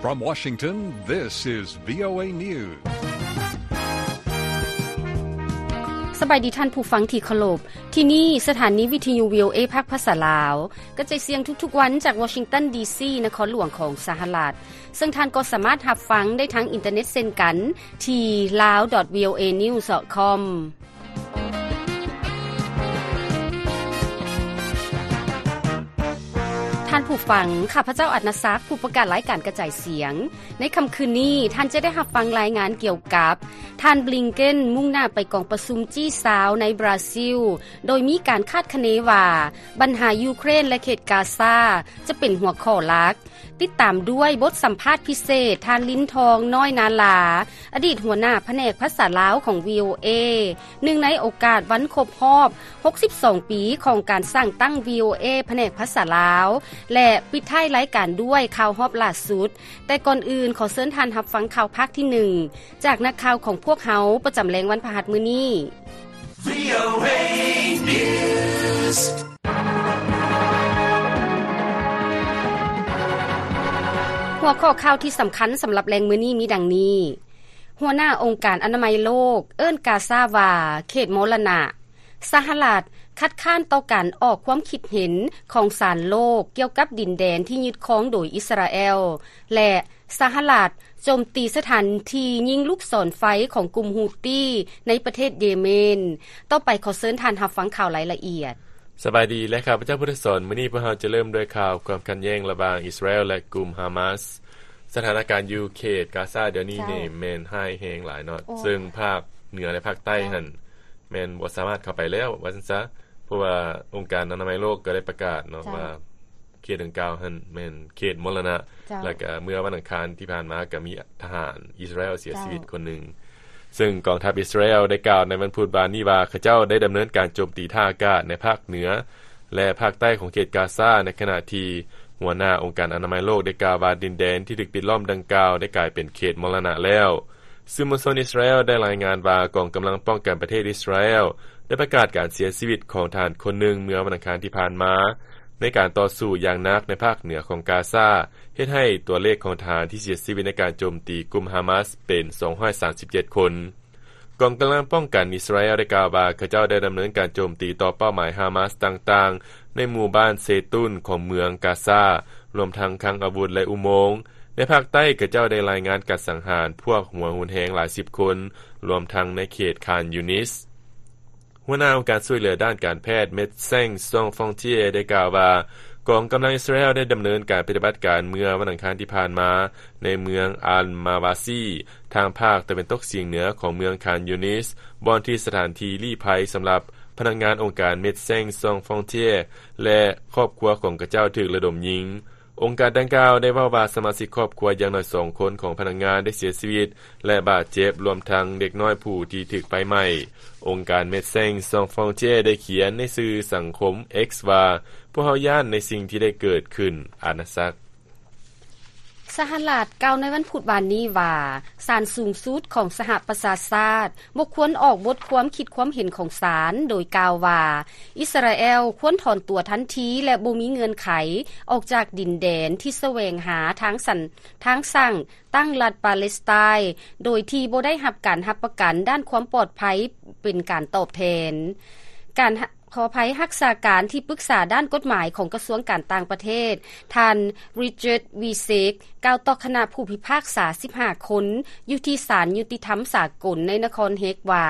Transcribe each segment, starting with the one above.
From Washington, this is VOA News. ສະບາຍດີທ່ານຜູ້ຟັງທີ່ເຄົາລົບ. ທີ່ນີ້ສະຖານີວິທະຍຸ VOA ພາກພາສາລາວ ກະຈາຍສຽງທຸກໆວັນຈາກ Washington D C ນະຄອນຫຼວງຂອງສະຫະລັດ. ເຊິ່ງທ່ານກໍສາມາດຮັບຟັງໄດ້ທາງອິນເຕີເນັດເຊັ່ນກັນ ທີ່ lao dot voa news dot com. ທ່ານຜູ້ຟັງ, ຂ້າພະເຈົ້າ ອັດນະສັກ, ຜູ້ປະກາດລາຍການກະຈາຍສຽງ. ໃນຄ່ຳຄືນນີ້, ທ່ານຈະໄດ້ຮັບຟັງລາຍງານກ່ຽວກັບ ທ່ານ ບລິງເກັນ ມຸ່ງໜ້າໄປກອງປະຊຸມ ຈີຊາວ ໃນບຣາຊິລ, ໂດຍມີການຄາດຄະເນວ່າ ບັນຫາຢູເຄຣນ ແລະ ເຂດກາຊາ ຈະເປັນຫົວຂໍ້ຫຼັກ. ຕິດຕາມດ້ວຍບົດສຳພາດພິເສດ ທ່ານ ລິນທອງ ນ້ອຍນາລາ, ອະດີດຫົວໜ້າພະແນກພາສາລາວຂອງ VOA, ເນື່ອງໃນໂອກາດວັນຄົບຮອບ ຫົກສິບສອງປີຂອງການສ້າງຕັ້ງ VOA ພະແນກພາສາລາວ ແລະ ປິດທ້າຍລາຍການດ້ວຍຂ່າວຮອບລ່າສຸດ. ແຕ່ກ່ອນອື່ນ, ຂໍເຊີນທ່ານຮັບຟັງຂ່າວພາກທີໜຶ່ງ ຈາກນັກຂ່າວຂອງພວກເຮົາ ປະຈຳແລງວັນພະຫັດມື້ນີ້. VOA News. ຫົວຂໍ້ຂ່າວທີ່ສຳຄັນສຳລັບແລງມື້ນີ້ມີດັ່ງນີ້: ຫົວໜ້າອົງການອະນາໄມໂລກເອີ້ນກາຊາວ່າເຂດມໍລະນະ. ສະຫະລັດຄັດຄ້ານຕໍ່ການອອກຄວາມຄິດເຫັນຂອງສານໂລກກ່ຽວກັບດິນແດນທີ່ຍຶດຄອງໂດຍອິດສະຣາແອລ ແລະ ສະຫະລັດໂຈມຕີສະຖານທີ່ຍິງລູກສອນໄຟຂອງກຸ່ມຮູ້ຕີໃນປະເທດເຢເມນ. ຕໍ່ໄປຂໍເຊີນທ່ານຮັບຟັງຂ່າວລາຍລະອຽດ. ສະບາຍດີ ແລະ ຂ້າພະເຈົ້າ ພຸດທະສອນ. ມື້ນີ້ພວກເຮົາຈະເລີ່ມດ້ວຍຂ່າວຄວາມຂັດແຍ່ງລະຫວ່າງອິດສະຣາແອລ ແລະ ກຸ່ມຮາມາສ. ສະຖານະການຢູ່ເຂດກາຊາດຽວນີ້ນີ້ແມ່ນຮ້າຍແຮງຫຼາຍເນາະ, ເຊິ່ງພາກເໜືອ ແລະ ພາກໃຕ້ຫັ້ນແມ່ນບໍ່ສາມາດເຂົ້າໄປແລ້ວວ່າຊັ້ນຊະ, ເພາະວ່າອົງການອະນາໄມໂລກກໍໄດ້ປະກາດເນາະວ່າ ເຂດດັ່ງກ່າວຫັ້ນແມ່ນເຂດມໍລະນະ. ແລ້ວກະເມື່ອວັນອັງຄານທີ່ຜ່ານມາກະມີທະຫານອິດສະຣາແອລເສຍຊີວິດຄົນໜຶ່ງ. ເຊິ່ງກອງທັບອິດສະຣາແອລໄດ້ກ່າວໃນວັນພຸດວານນີ້ວ່າ ເຂົາເຈົ້າໄດ້ດຳເນີນການໂຈມຕີທ່າອາກາດໃນພາກເໜືອ ແລະ ພາກໃຕ້ຂອງເຂດກາຊາ, ໃນຂະນະທີ່ຫົວໜ້າອົງການອະນາໄມໂລກໄດ້ກ່າວວ່າ ດິນແດນທີ່ຖືກປິດລ້ອມດັ່ງກ່າວໄດ້ກາຍເປັນເຂດມໍລະນະແລ້ວ. ສື່ມວນຊົນອິດສະຣາແອລໄດ້ລາຍງານວ່າ ກອງກຳລັງປ້ອງກັນປະເທດອິດສະຣາແອລໄດ້ປະກາດການເສຍຊີວິດຂອງທະຫານຄົນໜຶ່ງເມື່ອວັນອັງຄານທີ່ຜ່ານມາ ໃນການຕໍ່ສູ້ຢ່າງໜັກໃນພາກເໜືອຂອງກາຊາ, ເຮັດໃຫ້ຕົວເລກຂອງທະຫານທີ່ເສຍຊີວິດໃນການໂຈມຕີກຸ່ມຮາມາສເປັນສອງຮ້ອຍສາມສິບເຈັດຄົນ. ກອງກຳລັງປ້ອງກັນອິດສະຣາແອລໄດ້ກ່າວວ່າ ເຂົາເຈົ້າໄດ້ດຳເນີນການໂຈມຕີຕໍ່ເປົ້າໝາຍຮາມາສຕ່າງໆ ໃນໝູ່ບ້ານເຊຕຸນຂອງເມືອງກາຊາ, ລວມທັງຄັງອາວຸດ ແລະ ອຸໂມງ. ໃນພາກໃຕ້, ເຂົາເຈົ້າໄດ້ລາຍງານການສັງຫານພວກຫົວຮຸນແຮງຫຼາຍສິບຄົນ, ລວມທັງໃນເຂດຄານຢູນິສ. ຫົວໜ້າອົງການຊ່ວຍເຫຼືອດ້ານການແພດ Médecins Sans Frontières ໄດ້ກ່າວວ່າ ກອງກຳລັງອິດສະຣາແອລໄດ້ດຳເນີນການປະຕິບັດການເມື່ອວັນອັງຄານທີ່ຜ່ານມາ ໃນເມືອງອັນມາວາຊີ ທາງພາກຕາເວັນຕົກສຽງເໜືອຂອງເມືອງຄານຢູນິສ, ບ່ອນທີ່ສະຖານທີ່ລີ້ໄພສຳລັບພະນັກງານອົງການ Médecins Sans Frontières ແລະ ຄອບຄົວຂອງເຂົາເຈົ້າຖືກລະດົມຍິງ. ອົງການດັ່ງກ່າວໄດ້ເວົ້າວ່າ ສະມາຊິກຄອບຄົວຢ່າງໜ້ອຍສອງຄົນຂອງພະນັກງານໄດ້ເສຍຊີວິດ ແລະ ບາດເຈັບ, ລວມທັງເດັກນ້ອຍຜູ້ທີ່ຖືກໄຟໄໝ້. ອົງການ Médecins Sans Frontières ໄດ້ຂຽນໃນສື່ສັງຄົມ X ວ່າ, ພວກເຮົາຢ້ານໃນສິ່ງທີ່ໄດ້ເກີດຂຶ້ນ. ອານາສັກ. ສະຫະລັດກ່າວໃນວັນພຸດວານນີ້ວ່າ ສານສູງສຸດຂອງສະຫະປະຊາຊາດບໍ່ຄວນອອກບົດຄວາມຄິດຄວາມເຫັນຂອງສານ ໂດຍກ່າວວ່າ ອິດສະຣາແອລຄວນຖອນຕົວທັນທີ ແລະ ບໍ່ມີເງື່ອນໄຂອອກຈາກດິນແດນທີ່ສະແຫວງຫາທາງສັນ ທາງສ້າງຕັ້ງລັດປາເລສໄຕນ໌ ໂດຍທີ່ບໍ່ໄດ້ຮັບການຮັບປະກັນດ້ານຄວາມປອດໄພເປັນການຕອບແທນ. ການ ຂໍອະໄພ, ຮັກສາການທີ່ປຶກສາດ້ານກົດໝາຍຂອງກະຊວງການຕ່າງປະເທດ ທ່ານ Richard Visek ກ່າວຕໍ່ຄະນະຜູ້ພິພາກສາສິບຫ້າຄົນ ຢູ່ທີ່ສານຍຸຕິທຳສາກົນໃນນະຄອນເຮກວ່າ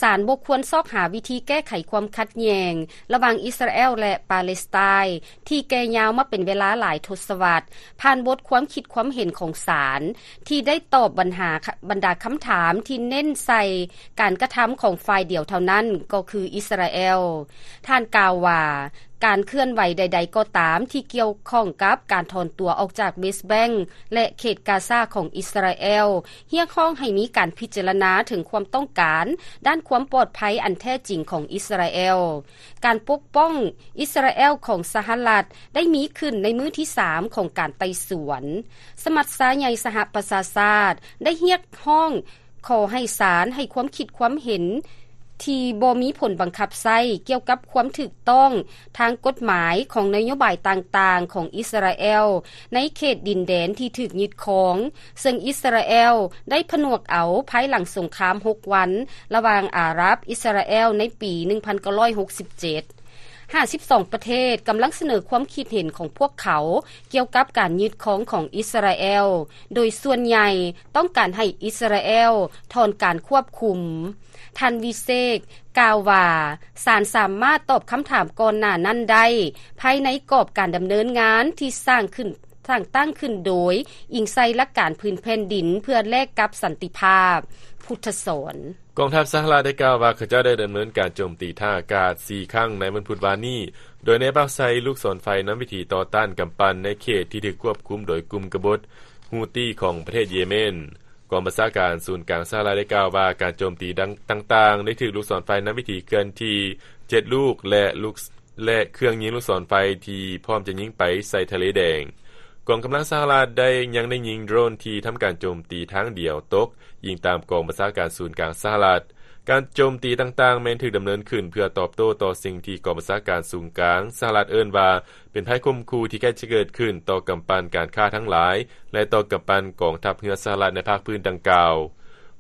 ສານບໍ່ຄວນຊອກຫາວິທີແກ້ໄຂຄວາມຂັດແຍ່ງລະຫວ່າງອິດສະຣາແອລ ແລະ ປາເລສໄຕນ໌ ທີ່ແກ່ຍາວມາເປັນເວລາຫຼາຍທົດສະວັດ ຜ່ານບົດຄວາມຄິດຄວາມເຫັນຂອງສານ ທີ່ໄດ້ຕອບບັນຫາ ບັນດາຄຳຖາມທີ່ເນັ້ນໃສ່ການກະທຳຂອງຝ່າຍດຽວເທົ່ານັ້ນ ກໍຄືອິດສະຣາແອລ. ທ່ານກ່າວວ່າ ການເຄື່ອນໄຫວໃດໆກໍຕາມທີ່ກ່ຽວຂ້ອງກັບການຖອນຕົວອອກຈາກເວສແບັງ ແລະ ເຂດກາຊາຂອງອິດສະຣາແອລ ຮຽກຮ້ອງໃຫ້ມີການພິຈາລະນາເຖິງຄວາມຕ້ອງການດ້ານຄວາມປອດໄພອັນແທ້ຈິງຂອງອິດສະຣາແອລ. ການປົກປ້ອງອິດສະຣາແອລຂອງສະຫະລັດໄດ້ມີຂຶ້ນໃນມື້ທີສາມຂອງການໄຕ່ສວນ. ສະມັດຊາໃຫຍ່ສະຫະປະຊາຊາດໄດ້ຮຽກຮ້ອງຂໍໃຫ້ສານໃຫ້ຄວາມຄິດຄວາມເຫັນ ທີ່ບໍ່ມີຜົນບັງຄັບໃຊ້ກ່ຽວກັບຄວາມຖືກຕ້ອງທາງກົດໝາຍຂອງນະໂຍບາຍຕ່າງໆຂອງອິດສະຣາແອລໃນເຂດດິນແດນທີ່ຖືກຍຶດຄອງ, ເຊິ່ງອິດສະຣາແອລໄດ້ຜະໜວກເອົາພາຍຫຼັງສົງຄາມຫົກວັນລະຫວ່າງອາຣັບ-ອິດສະຣາແອລໃນປີໜຶ່ງພັນເກົ້າຮ້ອຍຫົກສິບເຈັດ. ຫ້າສິບສອງປະເທດກຳລັງສະເໜີຄວາມຄິດເຫັນຂອງພວກເຂົາກ່ຽວກັບການຍຶດຄອງຂອງອິດສະຣາແອລ, ໂດຍສ່ວນໃຫຍ່ຕ້ອງການໃຫ້ອິດສະຣາແອລຖອນການຄວບຄຸມ. ທ່ານວິເຊກກ່າວວ່າ, ສານສາມາດຕອບຄຳຖາມກ່ອນໜ້ານັ້ນໄດ້ ພາຍໃນກອບການດຳເນີນງານທີ່ສ້າງຂຶ້ນ, ສ້າງຕັ້ງຂຶ້ນໂດຍອີງໃສ່ຫຼັກການພື້ນແຜ່ນດິນເພື່ອແລກກັບສັນຕິພາບ. ພຸດທະສອນ. ກອງທັບສະຫະລັດໄດ້ກ່າວວ່າ ເຂົາເຈົ້າໄດ້ດຳເນີນການໂຈມຕີທ່າອາກາດສີ່ຄັ້ງໃນວັນພຸດວານນີ້, ໂດຍໃນເປົ້າໃສ່ລູກສອນໄຟນຳວິທີຕໍ່ຕ້ານກຳປັ່ນໃນເຂດທີ່ຖືກຄວບຄຸມໂດຍກຸ່ມກະບົດ Houthi ຂອງປະເທດເຢເມນ. ກອງບັນຊາການສູນກາງສະຫະລັດໄດ້ກ່າວວ່າ ການໂຈມຕີດັ່ງ, ຕ່າງໆ ໄດ້ຖືກລູກສອນໄຟນຳວິທີເຄື່ອນທີ່ເຈັດລູກ ແລະ ລູກ ແລະ ເຄື່ອງຍິງລູກສອນໄຟທີ່ພ້ອມຈະຍິງໄປໃສ່ທະເລແດງ. ກອງກຳລັງສະຫະລັດໄດ້, ຍັງໄດ້ຍິງໂດຣນທີ່ທຳການໂຈມຕີທາງດຽວຕົກ, ອີງຕາມກອງບັນຊາການສູນກາງສະຫະລັດ. ການໂຈມຕີຕ່າງໆແມ່ນຖືກດຳເນີນຂຶ້ນເພື່ອຕອບໂຕ້ຕໍ່ສິ່ງທີ່ກອງບັນຊາການສູນກາງສະຫະລັດເອີ້ນວ່າ ເປັນໄພຂົ່ມຂູ່ທີ່ໃກ້ຈະເກີດຂຶ້ນຕໍ່ກຳປັ່ນການຄ້າທັງຫຼາຍ ແລະ ຕໍ່ກຳປັ່ນກອງທັບເຮືອສະຫະລັດໃນພາກພື້ນດັ່ງກ່າວ.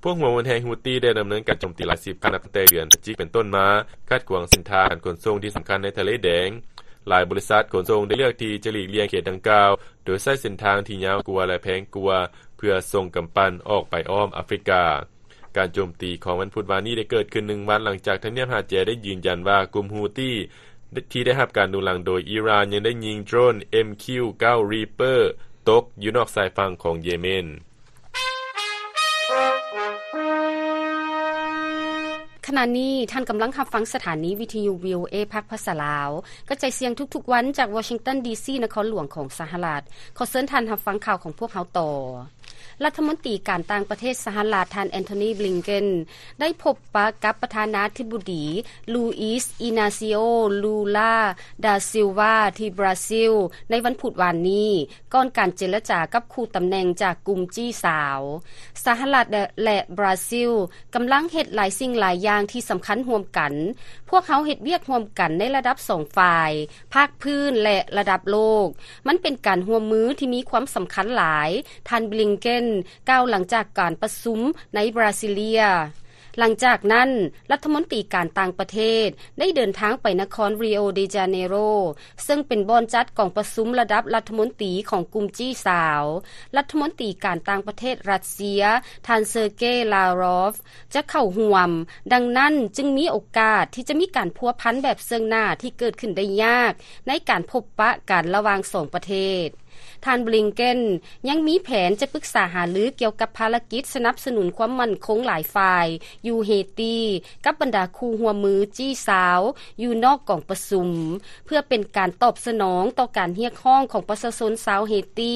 ພວກຫົວຮຸນແຮງ Houthi ໄດ້ດຳເນີນການໂຈມຕີຫຼາຍສິບຄັ້ງນັບຕັ້ງແຕ່ເດືອນພະຈິກເປັນຕົ້ນມາ, ຂັດຂວາງເສັ້ນທາງການຂົນສົ່ງທີ່ສຳຄັນໃນທະເລແດງ. ຫຼາຍບໍລິສັດຂົນສົ່ງໄດ້ເລືອກທີ່ຈະຫຼີກລ່ຽງເຂດດັ່ງກ່າວ, ໂດຍໃຊ້ເສັ້ນທາງທີ່ຍາວກວ່າ ແລະ ແພງກວ່າ ເພື່ອສົ່ງກຳປັ່ນອອກໄປອ້ອມອາຟຣິກາ. ການໂຈມຕີຂອງວັນພຸດວານນີ້ໄດ້ເກີດຂຶ້ນໜຶ່ງວັນຫຼັງຈາກທຳນຽບຮາແຈໄດ້ຢືນຢັນວ່າກຸ່ມ Houthi ທີ່ໄດ້ຮັບການໜູນຫຼັງໂດຍອີຣານ ຍັງໄດ້ຍິງໂດຣນ ເອັມຄິວເກົ້າ Reaper ຕົກຢູ່ນອກຊາຍຝັ່ງຂອງເຢເມນ. ຂະນະນີ້ທ່ານກຳລັງຮັບຟັງສະຖານີວິທະຍຸ VOA ພາກພາສາລາວ ກະຈາຍສຽງທຸກໆວັນຈາກວໍຊິງຕັນ ດີຊີ ນະຄອນຫຼວງຂອງສະຫະລັດ. ຂໍເຊີນທ່ານຮັບຟັງຂ່າວຂອງພວກເຮົາຕໍ່. ລັດຖະມົນຕີການຕ່າງປະເທດສະຫະລັດ ທ່ານ Antony Blinken ໄດ້ພົບປະກັບປະທານາທິບໍດີ Luiz Inacio Lula da Silva ທີ່ບຣາຊິລ ໃນວັນພຸດວານນີ້ ກ່ອນການເຈລະຈາກັບຄູ່ຕຳແໜ່ງຈາກກຸ່ມຈີ້ສາວ. ສະຫະລັດ ແລະ ແລະ ບຣາຊິລ ກຳລັງເຮັດຫຼາຍສິ່ງຫຼາຍຢ່າງທີ່ສຳຄັນຮ່ວມກັນ. ພວກເຮົາເຮັດວຽກຮ່ວມກັນໃນລະດັບສອງຝ່າຍ, ພາກພື້ນ ແລະ ລະດັບໂລກ. ມັນເປັນການຮ່ວມມືທີ່ມີຄວາມສຳຄັນຫຼາຍ, ທ່ານ Blinken ກ່າວຫຼັງຈາກການປະຊຸມໃນບຣາຊິເລຍ. ຫຼັງຈາກນັ້ນ, ລັດຖະມົນຕີການຕ່າງປະເທດໄດ້ເດີນທາງໄປນະຄອນ Rio de Janeiro ເຊິ່ງເປັນບ່ອນຈັດກອງປະຊຸມລະດັບລັດຖະມົນຕີຂອງກຸ່ມຈີ້ສາວ. ລັດຖະມົນຕີການຕ່າງປະເທດຣັດເຊຍ ທ່ານ Sergei Lavrov ຈະເຂົ້າຮ່ວມ, ດັ່ງນັ້ນຈຶ່ງມີໂອກາດທີ່ຈະມີການພົວພັນແບບເຊິ່ງໜ້າທີ່ເກີດຂຶ້ນໄດ້ຍາກໃນການພົບປະກັນລະຫວ່າງສອງປະເທດ. ທ່ານ Blinken ຍັງມີແຜນຈະປຶກສາຫາລືກ່ຽວກັບພາລະກິດສະໜັບສະໜູນຄວາມໝັ້ນຄົງຫຼາຍຝ່າຍຢູ່ເຮຕີ ກັບບັນດາຄູ່ຮ່ວມມືຈີ້ສາວຢູ່ນອກກອງປະຊຸມ ເພື່ອເປັນການຕອບສະໜອງຕໍ່ການຮຽກຮ້ອງຂອງປະຊາຊົນຊາວເຮຕີ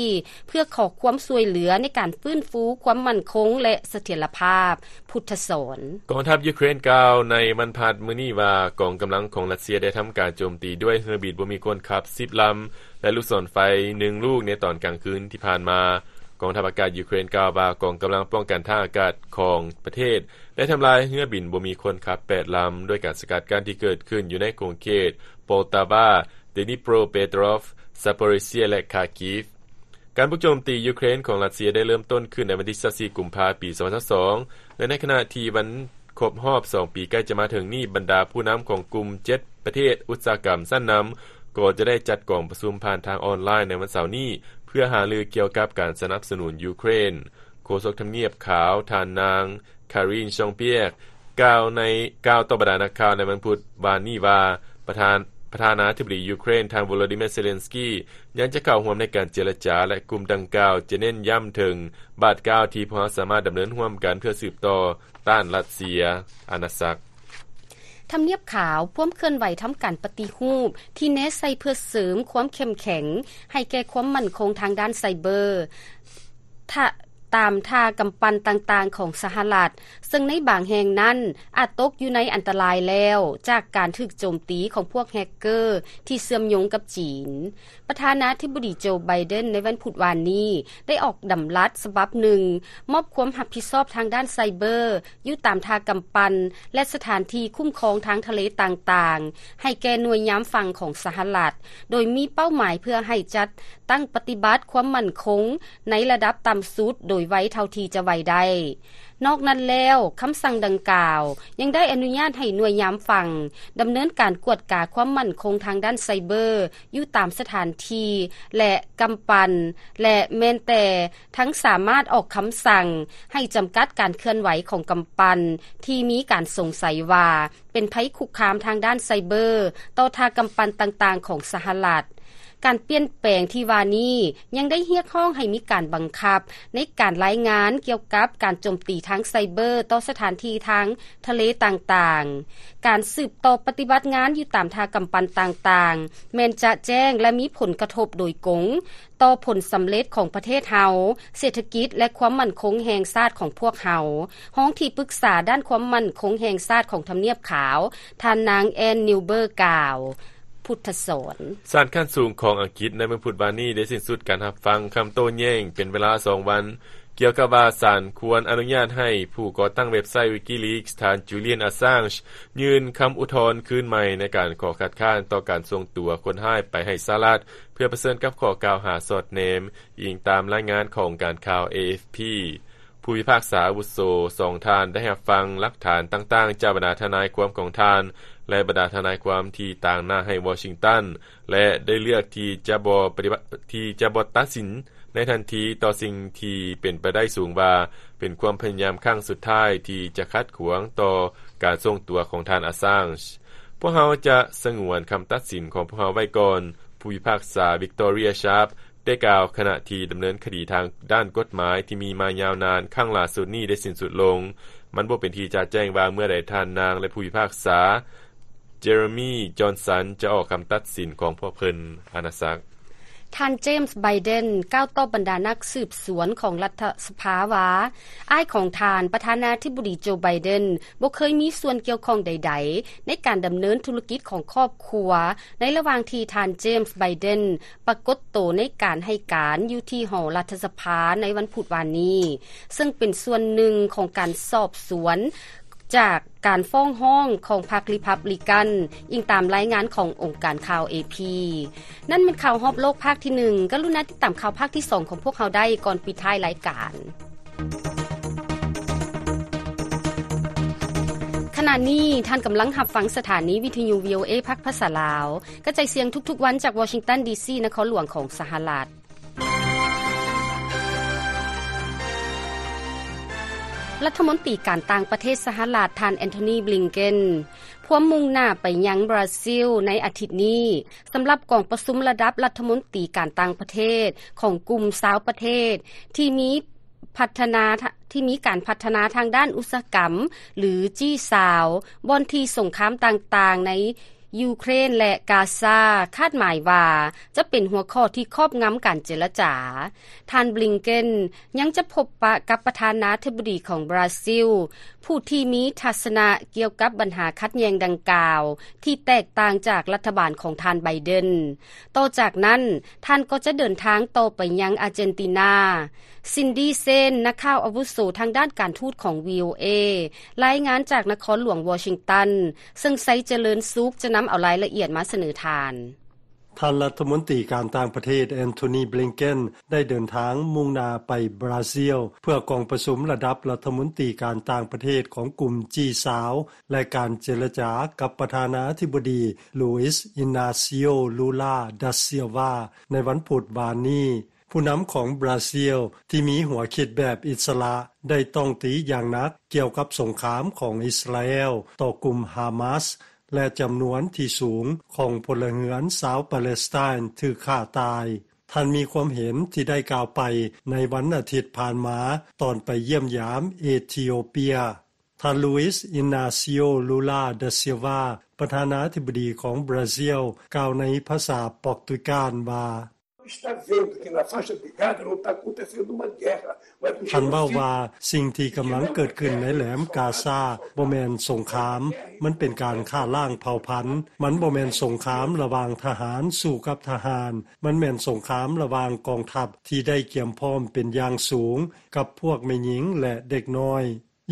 ເພື່ອຂໍຄວາມຊ່ວຍເຫຼືອໃນການຟື້ນຟູຄວາມໝັ້ນຄົງ ແລະ ສະຖຽນລະພາບ. ພຸດທະສອນ. ກອງທັບຢູເຄຣນກ່າວໃນວັນພະຫັດມື້ນີ້ວ່າ ກອງກຳລັງຂອງຣັດເຊຍໄດ້ທຳການໂຈມຕີດ້ວຍເຮືອບິນບໍ່ມີຄົນຂັບສິບລຳ ແລະ ລູກສອນໄຟໜຶ່ງລູກໃນຕອນກາງຄືນທີ່ຜ່ານມາ. ກອງທັບອາກາດຢູເຄຣນກ່າວວ່າ ກອງກຳລັງປ້ອງກັນທ່າອາກາດຂອງປະເທດ ໄດ້ທຳລາຍເຮືອບິນບໍ່ມີຄົນຂັບແປດລຳ ດ້ວຍການສະກັດກັ້ນທີ່ເກີດຂຶ້ນຢູ່ໃນຂົງເຂດ Poltava, Dnipropetrovsk, Zaporizhzhia ແລະ Kharkiv. ການບຸກໂຈມຕີຢູເຄຣນຂອງຣັດເຊຍໄດ້ເລີ່ມຕົ້ນຂຶ້ນໃນວັນທີຊາວສີ່ ກຸມພາ ປີສອງພັນຊາວສອງ ແລະ ໃນຂະນະທີ່ວັນຄົບຮອບສອງປີໃກ້ຈະມາເຖິງນີ້, ບັນດາຜູ້ນຳຂອງກຸ່ມເຈັດປະເທດອຸດສາຫະກຳຊັ້ນນຳ ກໍຈະໄດ້ຈັດກອງປະຊຸມຜ່ານທາງອອນລາຍໃນວັນເສົານີ້ ເພື່ອຫາລືກ່ຽວກັບການສະໜັບສະໜູນຢູເຄຣນ. ໂຄສົກທຳນຽບຂາວ ທ່ານນາງ Karine Jean-Pierre ກ່າວໃນ, ກ່າວຕໍ່ບັນດານັກຂ່າວໃນວັນພຸດວານນີ້ວ່າ ປະທານ, ປະທານາທິບໍດີຢູເຄຣນ ທ່ານ Volodymyr Zelensky ຍັງຈະເຂົ້າຮ່ວມໃນການເຈລະຈາ ແລະ ກຸ່ມດັ່ງກ່າວຈະເນັ້ນຢ້ຳເຖິງບາດກ້າວທີ່ພວກເຮົາສາມາດດຳເນີນຮ່ວມກັນເພື່ອສືບຕໍ່ຕ້ານຣັດເຊຍອານາຈັກ. ທຳນຽບຂາວ ພວມເຄື່ອນໄຫວທຳການປະຕິຮູບທີ່ແນໃສ່ເພື່ອເສີມຄວາມເຂັ້ມແຂງໃຫ້ແກ່ຄວາມໝັ້ນຄົງທາງດ້ານໄຊເບີ. ທະ ຕາມທ່າກຳປັ່ນຕ່າງໆຂອງສະຫະລັດ, ເຊິ່ງໃນບາງແຫ່ງນັ້ນອາດຕົກຢູ່ໃນອັນຕະລາຍແລ້ວ ຈາກການຖືກໂຈມຕີຂອງພວກແຮັກເກີທີ່ເຊື່ອມໂຍງກັບຈີນ. ປະທານາທິບໍດີໂຈ ໄບເດັນ ໃນວັນພຸດວານນີ້ ໄດ້ອອກດຳລັດສະບັບໜຶ່ງ ມອບຄວາມຮັບຜິດຊອບທາງດ້ານໄຊເບີ ຢູ່ຕາມທ່າກຳປັ່ນ ແລະ ສະຖານທີ່ຄຸ້ມຄອງທາງທະເລຕ່າງໆ ໃຫ້ແກ່ໜ່ວຍຍາມຝັ່ງຂອງສະຫະລັດ, ໂດຍມີເປົ້າໝາຍເພື່ອໃຫ້ຈັດຕັ້ງປະຕິບັດຄວາມໝັ້ນຄົງໃນລະດັບຕ່ຳສຸດໂດຍໄວເທົ່າທີ່ຈະໄວໄດ້. ນອກນັ້ນແລ້ວ, ຄຳສັ່ງດັ່ງກ່າວຍັງໄດ້ອະນຸຍາດໃຫ້ໜ່ວຍຍາມຝັ່ງດຳເນີນການກວດກາຄວາມໝັ້ນຄົງທາງດ້ານໄຊເບີຢູ່ຕາມສະຖານທີ່ ແລະ ກຳປັ່ນ ແລະ ແມ່ນແຕ່ ທັງສາມາດອອກຄຳສັ່ງໃຫ້ຈຳກັດການເຄື່ອນໄຫວຂອງກຳປັ່ນທີ່ມີການສົງໄສວ່າເປັນໄພຄຸກຄາມທາງດ້ານໄຊເບີຕໍ່ທ່າກຳປັ່ນຕ່າງໆຂອງສະຫະລັດ. ການປ່ຽນແປງທີ່ວ່ານີ້ຍັງໄດ້ຮຽກຮ້ອງໃຫ້ມີການບັງຄັບໃນການລາຍງານກ່ຽວກັບການໂຈມຕີທາງໄຊເບີຕໍ່ສະຖານທີ່ທາງທະເລຕ່າງໆ. ການສືບຕໍ່ປະຕິບັດງານຢູ່ຕາມທ່າກຳປັ່ນຕ່າງໆ ແມ່ນຈະແຈ້ງ ແລະ ມີຜົນກະທົບໂດຍກົງ ຕໍ່ຜົນສຳເລັດຂອງປະເທດເຮົາ, ເສດຖະກິດ ແລະ ຄວາມໝັ້ນຄົງແຫ່ງຊາດຂອງພວກເຮົາ, ຮອງທີ່ປຶກສາດ້ານຄວາມໝັ້ນຄົງແຫ່ງຊາດຂອງທຳນຽບຂາວ, ທ່ານນາງ ແອນ ນິວເບີ ກ່າວ. ພຸດທະສອນ. ສານຂັ້ນສູງຂອງອັງກິດໃນວັນພຸດວານນີ້ໄດ້ສິ້ນສຸດການຮັບຟັງຄຳໂຕ້ແຍ້ງເປັນເວລາສອງວັນ ກ່ຽວກັບວ່າສານຄວນອະນຸຍາດໃຫ້ຜູ້ກໍ່ຕັ້ງເວັບໄຊ Wikileaks ທ່ານ Julian Assange ຍື່ນຄຳອຸທອນຄືນໃໝ່ໃນການຂໍຄັດຄ້ານຕໍ່ການສົ່ງຕົວຄົນຮ້າຍໄປໃຫ້ສະຫະລັດ ເພື່ອປະເຊີນກັບຂໍ້ກ່າວຫາສອດແນມ, ອີງຕາມລາຍງານຂອງການຂ່າວ ເອ ເອັຟ ພີ. ຜູ້ພິພາກສາອາວຸໂສສອງທ່ານໄດ້ຮັບຟັງຫຼັກຖານຕ່າງໆຈາກບັນດາທະນາຍຄວາມຂອງທ່ານ ແລະ ບັນດາທະນາຍຄວາມທີ່ຕາງໜ້າໃຫ້ວໍຊິງຕັນ ແລະ ໄດ້ເລືອກທີ່ຈະບໍ່ປະຕິບັດ ທີ່ຈະບໍ່ຕັດສິນໃນທັນທີຕໍ່ສິ່ງທີ່ເປັນໄປໄດ້ສູງວ່າເປັນຄວາມພະຍາຍາມຄັ້ງສຸດທ້າຍທີ່ຈະຂັດຂວາງຕໍ່ການສົ່ງຕົວຂອງທ່ານ Assange. ພວກເຮົາຈະສະຫງວນຄຳຕັດສິນຂອງພວກເຮົາໄວ້ກ່ອນ, ຜູ້ພິພາກສາ Victoria Sharp ໄດ້ກ່າວຂະນະທີ່ດຳເນີນຄະດີທາງດ້ານກົດໝາຍທີ່ມີມາຍາວນານຄັ້ງຫຼ້າສຸດນີ້ໄດ້ສິ້ນສຸດລົງ. ມັນບໍ່ເປັນທີ່ຈະແຈ້ງວ່າເມື່ອໃດທ່ານນາງ ແລະ ຜູ້ພິພາກສາ Jeremy Johnson ຈະອອກຄຳຕັດສິນຂອງພວກເພິ່ນ. ອານາສັກ. ທ່ານ James Biden ກ່າວຕໍ່ບັນດານັກສືບສວນຂອງລັດຖະສະພາວ່າ ອ້າຍຂອງທ່ານ ປະທານາທິບໍດີ Joe Biden ບໍ່ເຄີຍມີສ່ວນກ່ຽວຂ້ອງໃດໆ ໃນການດຳເນີນທຸລະກິດຂອງຄອບຄົວ ໃນລະຫວ່າງທີ່ທ່ານ James Biden ປາກົດໂຕໃນການໃຫ້ການຢູ່ທີ່ຫໍລັດຖະສະພາໃນວັນພຸດວານນີ້, ເຊິ່ງເປັນສ່ວນໜຶ່ງຂອງການສອບສວນຈາກການຟ້ອງຮ້ອງຂອງພັກ Republican, ອີງຕາມລາຍງານຂອງອົງການຂ່າວ AP. ນັ້ນແມ່ນຂ່າວຮອບໂລກພາກທີໜຶ່ງ. ກະລຸນາຕິດຕາມຂ່າວພາກທີສອງຂອງພວກເຮົາໄດ້ກ່ອນປິດທ້າຍລາຍການ. ຂະນະນີ້ທ່ານກຳລັງຮັບຟັງສະຖານີວິທະຍຸ VOA ພາກພາສາລາວ ກະຈາຍສຽງທຸກໆວັນຈາກວໍຊິງຕັນ ດີຊີ ນະຄອນຫຼວງຂອງສະຫະລັດ. ລັດຖະມົນຕີການຕ່າງປະເທດສະຫະລັດ ທ່ານ Antony Blinken ພວມມຸ່ງໜ້າໄປຍັງບຣາຊິລໃນອາທິດນີ້ ສຳລັບກອງປະຊຸມລະດັບລັດຖະມົນຕີການຕ່າງປະເທດຂອງກຸ່ມຊາວປະເທດທີ່ມີພັດທະນາ ທີ່ມີການພັດທະນາທາງດ້ານອຸດສາຫະກຳ ຫຼື ຈີຊາວ ບ່ອນທີ່ສົງຄາມຕ່າງໆໃນຢູເຄຣນ ແລະ ກາຊາ ຄາດໝາຍວ່າຈະເປັນຫົວຂໍ້ທີ່ຄອບງຳການເຈລະຈາ. ທ່ານ Blinken ຍັງຈະພົບປະກັບປະທານາທິບໍດີຂອງບຣາຊິລ ຜູ້ທີ່ມີທັດສະນະກ່ຽວກັບບັນຫາຂັດແຍ່ງດັ່ງກ່າວ ທີ່ແຕກຕ່າງຈາກລັດຖະບານຂອງທ່ານ Biden. ຕໍ່ຈາກນັ້ນ, ທ່ານກໍຈະເດີນທາງຕໍ່ໄປຍັງອາເຈນຕິນາ. Cindy Saine ນັກຂ່າວອາວຸໂສທາງດ້ານການທູດຂອງ VOA ລາຍງານຈາກນະຄອນຫຼວງວໍຊິງຕັນ, ເຊິ່ງໄຊຈະເລີນສຸກຈະນຳເອົາລາຍລະອຽດມາສະເໜີທ່ານ. ທ່ານລັດຖະມົນຕີການຕ່າງປະເທດ Antony Blinken ໄດ້ເດີນທາງມຸ່ງໜ້າໄປບຣາຊິລ ເພື່ອກອງປະຊຸມລະດັບລັດຖະມົນຕີການຕ່າງປະເທດຂອງກຸ່ມ ຈີຊາວ ແລະ ການເຈລະຈາກັບປະທານາທິບໍດີ Luiz Inacio Lula da Silva ໃນວັນພຸດວານນີ້. ຜູ້ນຳຂອງບຣາຊິລທີ່ມີຫົວຄິດແບບອິດສະຫຼະ ໄດ້ຕ້ອງຕີຢ່າງໜັກກ່ຽວກັບສົງຄາມຂອງອິດສະຣາແອລຕໍ່ກຸ່ມຮາມາສ ແລະ ຈຳນວນທີ່ສູງຂອງພົນລະເຮືອນຊາວປາເລສໄຕນຖືກຂ້າຕາຍ. ທ່ານມີຄວາມເຫັນທີ່ໄດ້ກ່າວໄປໃນວັນອາທິດຜ່ານມາ ຕອນໄປຢ້ຽມຢາມເອທິໂອເປຍ. ທ່ານ Luiz Inacio Lula da Silva ປະທານາທິບໍດີຂອງບຣາຊິລ ກ່າວໃນພາສາປອກຕຸຍການວ່າ: Está vendo que na faixa de Gaza não está acontecendo uma guerra, mas o genocídio. ທ່ານເວົ້າວ່າ ສິ່ງທີ່ກຳລັງເກີດຂຶ້ນໃນແຫຼມກາຊາບໍ່ແມ່ນສົງຄາມ, ມັນເປັນການຂ້າລ້າງເຜົ່າພັນ. ມັນບໍ່ແມ່ນສົງຄາມລະຫວ່າງທະຫານສູ້ກັບທະຫານ, ມັນແມ່ນສົງຄາມລະຫວ່າງກອງທັບທີ່ໄດ້ກຽມພ້ອມເປັນຢ່າງສູງ ກັບພວກແມ່ຍິງ ແລະ ເດັກນ້ອຍ.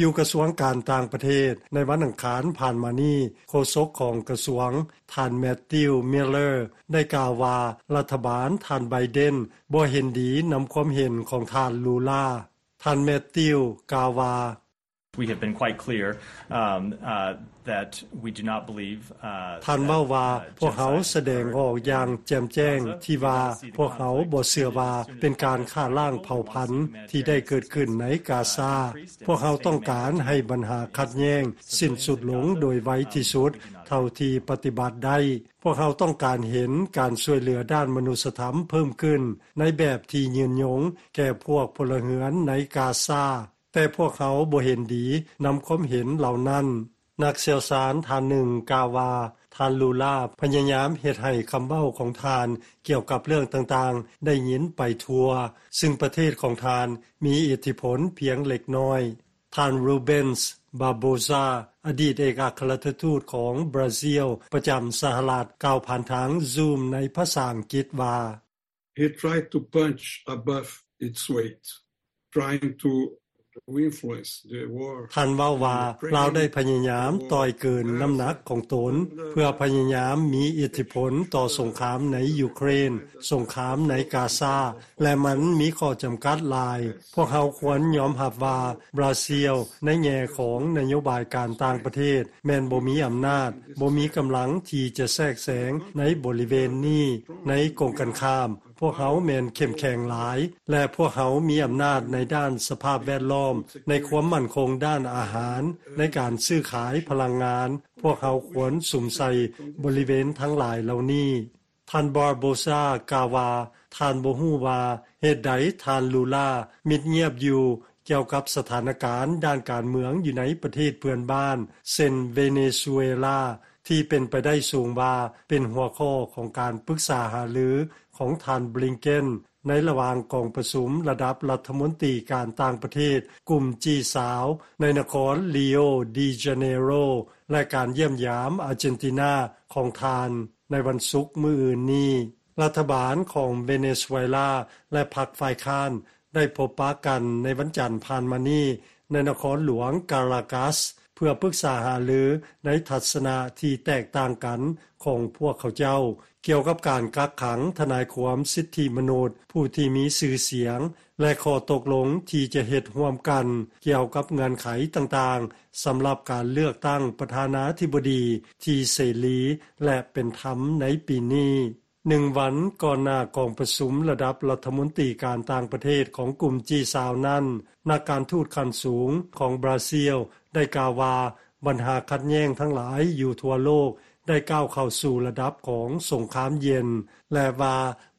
ຢູ່ກະຊວງການຕ່າງປະເທດ ໃນວັນອັງຄານຜ່ານມານີ້, ໂຄສົກຂອງກະຊວງ ທ່ານ Matthew Miller ໄດ້ກ່າວວ່າ ລັດຖະບານທ່ານ Biden ບໍ່ເຫັນດີນຳຄວາມເຫັນຂອງທ່ານ Lula. ທ່ານ Matthew ກ່າວວ່າ We have been quite clear, um, uh, that we do not believe, uh, ທ່ານເວົ້າວ່າ ພວກເຮົາສະແດງອອກຢ່າງແຈ່ມແຈ້ງທີ່ວ່າ ພວກເຮົາບໍ່ເຊື່ອວ່າເປັນການຂ້າລ້າງເຜົ່າພັນທີ່ໄດ້ເກີດຂຶ້ນໃນກາຊາ. ພວກເຮົາຕ້ອງການໃຫ້ບັນຫາຂັດແຍ້ງສິ້ນສຸດລົງໂດຍໄວທີ່ສຸດເທົ່າທີ່ປະຕິບັດໄດ້. ພວກເຮົາຕ້ອງການເຫັນການຊ່ວຍເຫຼືອດ້ານມະນຸດສະທຳເພີ່ມຂຶ້ນໃນແບບທີ່ຍືນຍົງແກ່ພວກພົນລະເຮືອນໃນກາຊາ, ແຕ່ພວກເຮົາບໍ່ເຫັນດີນຳຄວາມເຫັນເຫຼົ່ານັ້ນ. ນັກຊ່ຽວຊານທ່ານໜຶ່ງກ່າວວ່າ ທ່ານ Lula ພະຍາຍາມເຮັດໃຫ້ຄຳເວົ້າຂອງທ່ານກ່ຽວກັບເລື່ອງຕ່າງໆໄດ້ຍິນໄປທົ່ວ, ຊຶ່ງປະເທດຂອງທ່ານມີອິດທິພົນພຽງເລັກນ້ອຍ. ທ່ານ Rubens Barbosa ອະດີດເອກອັກຄະລັດຖະທູດຂອງບຣາຊິລປະຈຳສະຫະລັດ ກ່າວຜ່ານທາງ Zoom ໃນພາສາອັງກິດວ່າ He tried to punch above its weight, trying to influence the war. ທ່ານເວົ້າວ່າ ລາວໄດ້ພະຍາຍາມຕ່ອຍເກີນນ້ຳໜັກຂອງຕົນ ເພື່ອພະຍາຍາມມີອິດທິພົນຕໍ່ສົງຄາມໃນຢູເຄຣນ, ສົງຄາມໃນກາຊາ ແລະ ມັນມີຂໍ້ຈຳກັດຫຼາຍ. ພວກເຮົາຄວນຍອມຮັບວ່າບຣາຊິລໃນແງ່ຂອງນະໂຍບາຍການຕ່າງປະເທດ ແມ່ນບໍ່ມີອຳນາດ, ບໍ່ມີກຳລັງທີ່ຈະແຊກແຊງໃນບໍລິເວນນີ້. ໃນກົງກັນຂ້າມ, ພວກເຮົາແມ່ນເຂັ້ມແຂງຫຼາຍ ແລະ ພວກເຮົາມີອຳນາດໃນດ້ານສະພາບແວດລ້ອມ, ໃນຄວາມໝັ້ນຄົງດ້ານອາຫານ, ໃນການຊື້ຂາຍພະລັງງານ. ພວກເຮົາຄວນສຸມໃສ່ບໍລິເວນທັງຫຼາຍເຫຼົ່ານີ້. ທ່ານ Barbosa ກ່າວວ່າ ທ່ານບໍ່ຮູ້ວ່າເຫດໃດທ່ານ Lula ມິດງຽບຢູ່ ກ່ຽວກັບສະຖານະການດ້ານການເມືອງຢູ່ໃນປະເທດເພື່ອນບ້ານ ເຊັ່ນ ເວເນຊູເອລາ ທີ່ເປັນໄປໄດ້ສູງວ່າເປັນຫົວຂໍ້ຂອງການປຶກສາຫາລືຂອງທ່ານ Blinken ໃນລະຫວ່າງກອງປະຊຸມລະດັບລັດຖະມົນຕີການຕ່າງປະເທດກຸ່ມ ຈີ ຊາວ ໃນນະຄອນ Rio de Janeiro ແລະ ການຢ້ຽມຢາມອາເຈນຕິນາຂອງທ່ານໃນວັນສຸກມື້ອື່ນນີ້. ລັດຖະບານຂອງເວເນຊູເອລາ ແລະ ພັກຝ່າຍຄ້ານ ໄດ້ພົບປະກັນໃນວັນຈັນຜ່ານມານີ້ ໃນນະຄອນຫຼວງກາລາກັສ ເພື່ອປຶກສາຫາລືໃນທັດສະນະທີ່ແຕກຕ່າງກັນຂອງພວກເຂົາເຈົ້າ ກ່ຽວກັບການກັກຂັງທະນາຍຄວາມສິດທິມະນຸດຜູ້ທີ່ມີຊື່ສຽງ ແລະ ຂໍ້ຕົກລົງທີ່ຈະເຮັດຮ່ວມກັນກ່ຽວກັບເງື່ອນໄຂຕ່າງໆ ສຳລັບການເລືອກຕັ້ງປະທານາທິບໍດີທີ່ເສລີ ແລະ ເປັນທຳໃນປີນີ້. ໜຶ່ງວັນກ່ອນໜ້າກອງປະຊຸມລະດັບລັດຖະມົນຕີການຕ່າງປະເທດຂອງກຸ່ມ ຈີ ຊາວ ນັ້ນ, ນັກການທູດຂັ້ນສູງຂອງບຣາຊິລໄດ້ກ່າວວ່າ ບັນຫາຂັດແຍ້ງທັງຫຼາຍຢູ່ທົ່ວໂລກໄດ້ກ້າວເຂົ້າສູ່ລະດັບຂອງສົງຄາມເຢັນ ແລະ ວ່າ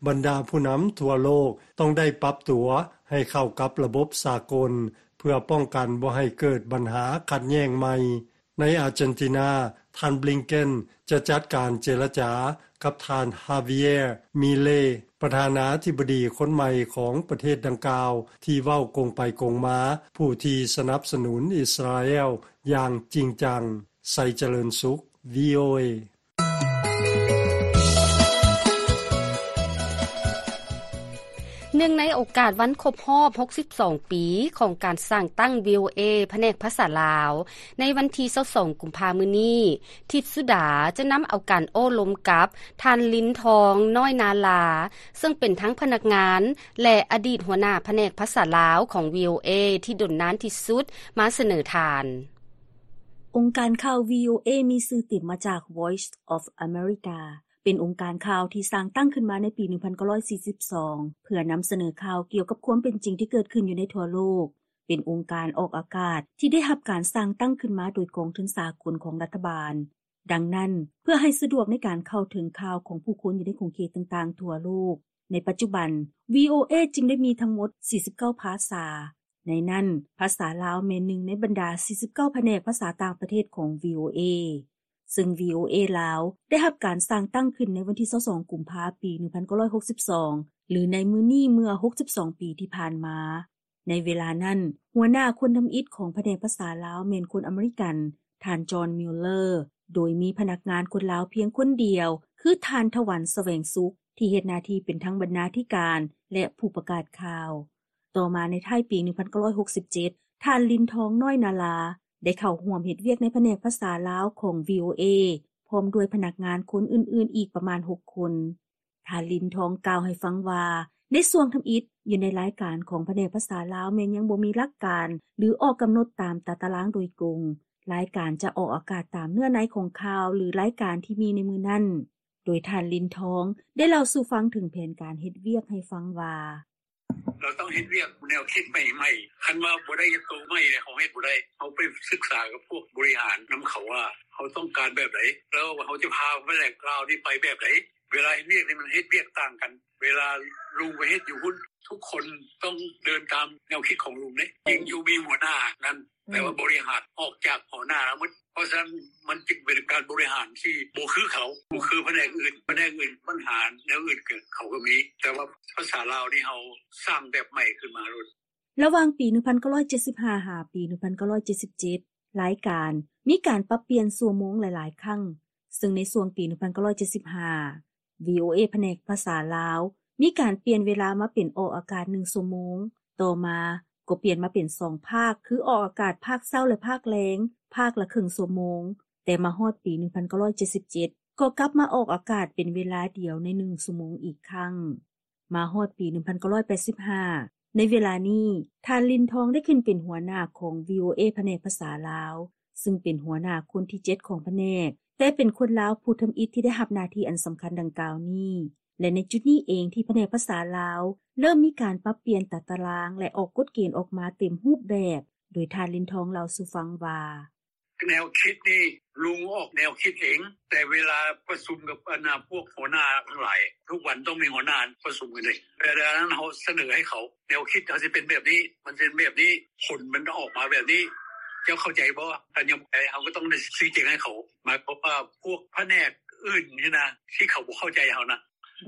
ບັນດາຜູ້ນຳທົ່ວໂລກຕ້ອງໄດ້ປັບຕົວໃຫ້ເຂົ້າກັບລະບົບສາກົນ ເພື່ອປ້ອງກັນບໍ່ໃຫ້ເກີດບັນຫາຂັດແຍ້ງໃໝ່. ໃນອາເຈນຕິນາ, ທ່ານ Blinken ຈະຈັດການເຈລະຈາກັບທ່ານ Javier Milei ປະທານາທິບໍດີຄົນໃໝ່ຂອງປະເທດດັ່ງກ່າວ ທີ່ເວົ້າກົງໄປກົງມາ, ຜູ້ທີ່ສະໜັບສະໜູນອິດສະຣາແອລຢ່າງຈິງຈັງ. ໄຊຈະເລີນສຸກ VOA. ເນື່ອງໃນໂອກາດວັນຄົບຮອບຫົກສິບສອງປີຂອງການສ້າງຕັ້ງ VOA ພະແນກພາສາລາວ ໃນວັນທີຊາວສອງ ກຸມພາ ມື້ນີ້, ທິດສຸດາຈະນຳເອົາການໂອ້ລົມກັບທ່ານ ລິນທອງ ນ້ອຍນາລາ, ເຊິ່ງເປັນທັງພະນັກງານ ແລະ ອະດີດຫົວໜ້າພະແນກພາສາລາວຂອງ VOA ທີ່ດົນນານທີ່ສຸດ ມາສະເໜີທ່ານ. ອົງການຂ່າວ VOA ມີຊື່ເຕັມມາຈາກ Voice of America. ເປັນອົງການຂ່າວທີ່ສ້າງຕັ້ງຂຶ້ນມາໃນປີໜຶ່ງພັນເກົ້າຮ້ອຍສີ່ສິບສອງ ເພື່ອນຳສະເໜີຂ່າວກ່ຽວກັບຄວາມເປັນຈິງທີ່ເກີດຂຶ້ນຢູ່ໃນທົ່ວໂລກ. ເປັນອົງການອອກອາກາດທີ່ໄດ້ຮັບການສ້າງຕັ້ງຂຶ້ນມາໂດຍກອງທຶນສາກົນຂອງລັດຖະບານ. ດັ່ງນັ້ນ, ເພື່ອໃຫ້ສະດວກໃນການເຂົ້າເຖິງຂ່າວຂອງຜູ້ຄົນຢູ່ໃນຂົງເຂດຕ່າງໆທົ່ວໂລກ, ໃນປັດຈຸບັນ VOA ຈຶ່ງໄດ້ມີທັງໝົດສີ່ສິບເກົ້າພາສາ. ໃນນັ້ນ, ພາສາລາວແມ່ນໜຶ່ງໃນບັນດາສີ່ສິບເກົ້າພະແນກພາສາຕ່າງປະເທດຂອງ VOA. ເຊິ່ງ VOA ລາວ ໄດ້ຮັບການສ້າງຕັ້ງຂຶ້ນໃນວັນທີຊາວສອງ ກຸມພາ ປີໜຶ່ງພັນເກົ້າຮ້ອຍຫົກສິບສອງ ຫຼືໃນມື້ນີ້ເມື່ອ ຫົກສິບສອງ ປີທີ່ຜ່ານມາ. ໃນເວລານັ້ນ, ຫົວໜ້າຄົນທຳອິດຂອງພະແນກພາສາລາວແມ່ນຄົນອາເມລິກັນ, ທ່ານ John Mueller, ໂດຍມີພະນັກງານຄົນລາວພຽງຄົນດຽວ, ຄືທ່ານ ຖະວັນ ສະແຫວງສຸກ, ທີ່ເຮັດໜ້າທີ່ເປັນທັງບັນນາທິການ ແລະ ຜູ້ປະກາດຂ່າວ. ຕໍ່ມາໃນທ້າຍປີ ໜຶ່ງພັນເກົ້າຮ້ອຍຫົກສິບເຈັດ ທ່ານ ລິນທອງ ນ້ອຍນາລາ ໄດ້ເຂົ້າຮ່ວມເຮັດວຽກໃນພະແນກພາສາລາວຂອງ VOA ພ້ອມດ້ວຍພະນັກງານຄົນອື່ນໆອີກປະມານ ຫົກ ຄົນ. ທ່ານ ລິນທອງ ກ່າວໃຫ້ຟັງວ່າ ໃນຊ່ວງທຳອິດ ຢູ່ໃນລາຍການຂອງພະແນກພາສາລາວແມ່ນຍັງບໍ່ມີຫຼັກການ ຫຼື ອອກກຳນົດຕາມຕາຕະລາງໂດຍກົງ. ລາຍການຈະອອກອາກາດຕາມເນື້ອໃນຂອງຂ່າວ ຫຼື ລາຍການທີ່ມີໃນມື້ນັ້ນ. ໂດຍທ່ານ ລິນທອງ ໄດ້ເລົ່າສູ່ຟັງເຖິງແຜນການເຮັດວຽກໃຫ້ຟັງວ່າ: ເຮົາຕ້ອງເຮັດວຽກແນວຄິດໃໝ່ໆ ຄັນວ່າບໍ່ໄດ້ໂຕໃໝ່ເນຍ ເຮົາເຮັດບໍ່ໄດ້. ເຮົາໄປສຶກສາກັບພວກບໍລິຫານນຳເຂົາວ່າ ເຮົາຕ້ອງການແບບໃດ ແລ້ວເຮົາຈະພາພະແນກລາວນີ້ໄປແບບໃດ. ເວລາເຮັດວຽກນີ້ມັນເຮັດວຽກຕ່າງກັນ. ເວລາລຸງໄປເຮັດຢູ່ພຸ້ນ ທຸກຄົນຕ້ອງເດີນຕາມແນວຄິດຂອງລຸງເດ້. ຈິງຢູ່ມີຫົວໜ້ານັ້ນ ແຕ່ວ່າບໍລິຫານອອກຈາກຫົວໜ້າແລ້ວໝົດ. ເພາະສະນັ້ນມັນຈຶ່ງເປັນການບໍລິຫານທີ່ບໍ່ຄືເຂົາ, ບໍ່ຄືພະແນກອື່ນ. ພະແນກອື່ນບັນຫາແນວອື່ນເກີດ ເຂົາກໍມີ, ແຕ່ວ່າພາສາລາວນີ້ເຮົາສ້າງແບບໃໝ່ຂຶ້ນມາໂລດ. ລະຫວ່າງປີ ໜຶ່ງພັນເກົ້າຮ້ອຍເຈັດສິບຫ້າ ຫາປີ ໜຶ່ງພັນເກົ້າຮ້ອຍເຈັດສິບເຈັດ ລາຍການມີການປັບປ່ຽນຊົ່ວໂມງຫຼາຍໆຄັ້ງ, ເຊິ່ງໃນຊ່ວງປີ ໜຶ່ງພັນເກົ້າຮ້ອຍເຈັດສິບຫ້າ VOA ພະແນກພາສາລາວ ມີການປ່ຽນເວລາມາເປັນອອກອາກາດໜຶ່ງຊົ່ວໂມງ, ຕໍ່ມາກໍປ່ຽນມາເປັນສອງພາກ ຄືອອກອາກາດພາກເຊົ້າ ແລະ ພາກແລງ, ພາກລະເຄິ່ງຊົ່ວໂມງ, ແຕ່ມາຮອດປີ ໜຶ່ງພັນເກົ້າຮ້ອຍເຈັດສິບເຈັດ ກໍກັບມາອອກອາກາດເປັນເວລາດຽວໃນໜຶ່ງຊົ່ວໂມງອີກຄັ້ງ. ມາຮອດປີ ໜຶ່ງພັນເກົ້າຮ້ອຍແປດສິບຫ້າ ໃນເວລານີ້ ທ່ານ ລິນທອງ ໄດ້ຂຶ້ນເປັນຫົວໜ້າຂອງ VOA ພະແນກພາສາລາວ, ເຊິ່ງເປັນຫົວໜ້າຄົນທີເຈັດຂອງພະແນກ, ແຕ່ເປັນຄົນລາວຜູ້ທຳອິດທີ່ໄດ້ຮັບໜ້າທີ່ອັນສຳຄັນດັ່ງກ່າວນີ້ ແລະ ໃນຈຸດນີ້ເອງທີ່ພະແນກພາສາລາວເລີ່ມມີການປັບປ່ຽນຕາຕະລາງ ແລະ ອອກກົດເກນອອກມາເຕັມຮູບແບບ, ໂດຍທ່ານ ລິນທອງ ເລົ່າສູ່ຟັງວ່າ: ແນວຄິດນີ້ລຸງອອກແນວຄິດເອງ, ແຕ່ເວລາປະຊຸມກັບອັນນາພວກຫົວໜ້າທັງຫຼາຍ ທຸກວັນຕ້ອງມີຫົວໜ້າປະຊຸມກັນເດ້. ເວລານັ້ນເຮົາສະເໜີໃຫ້ເຂົາ ແນວຄິດເຮົາຊິເປັນແບບນີ້, ມັນເປັນແບບນີ້, ຜົນມັນອອກມາແບບນີ້, ເຈົ້າເຂົ້າໃຈບໍ່? ຄັນຍັງບໍ່ເຂົ້າໃຈ ເຮົາກໍຕ້ອງໄດ້ຊີ້ແຈງໃຫ້ເຂົາ. ໝາຍຄວາມວ່າພວກພະແນກອື່ນນີ້ນະ ທີ່ເຂົາບໍ່ເຂົ້າໃຈເຮົານະ,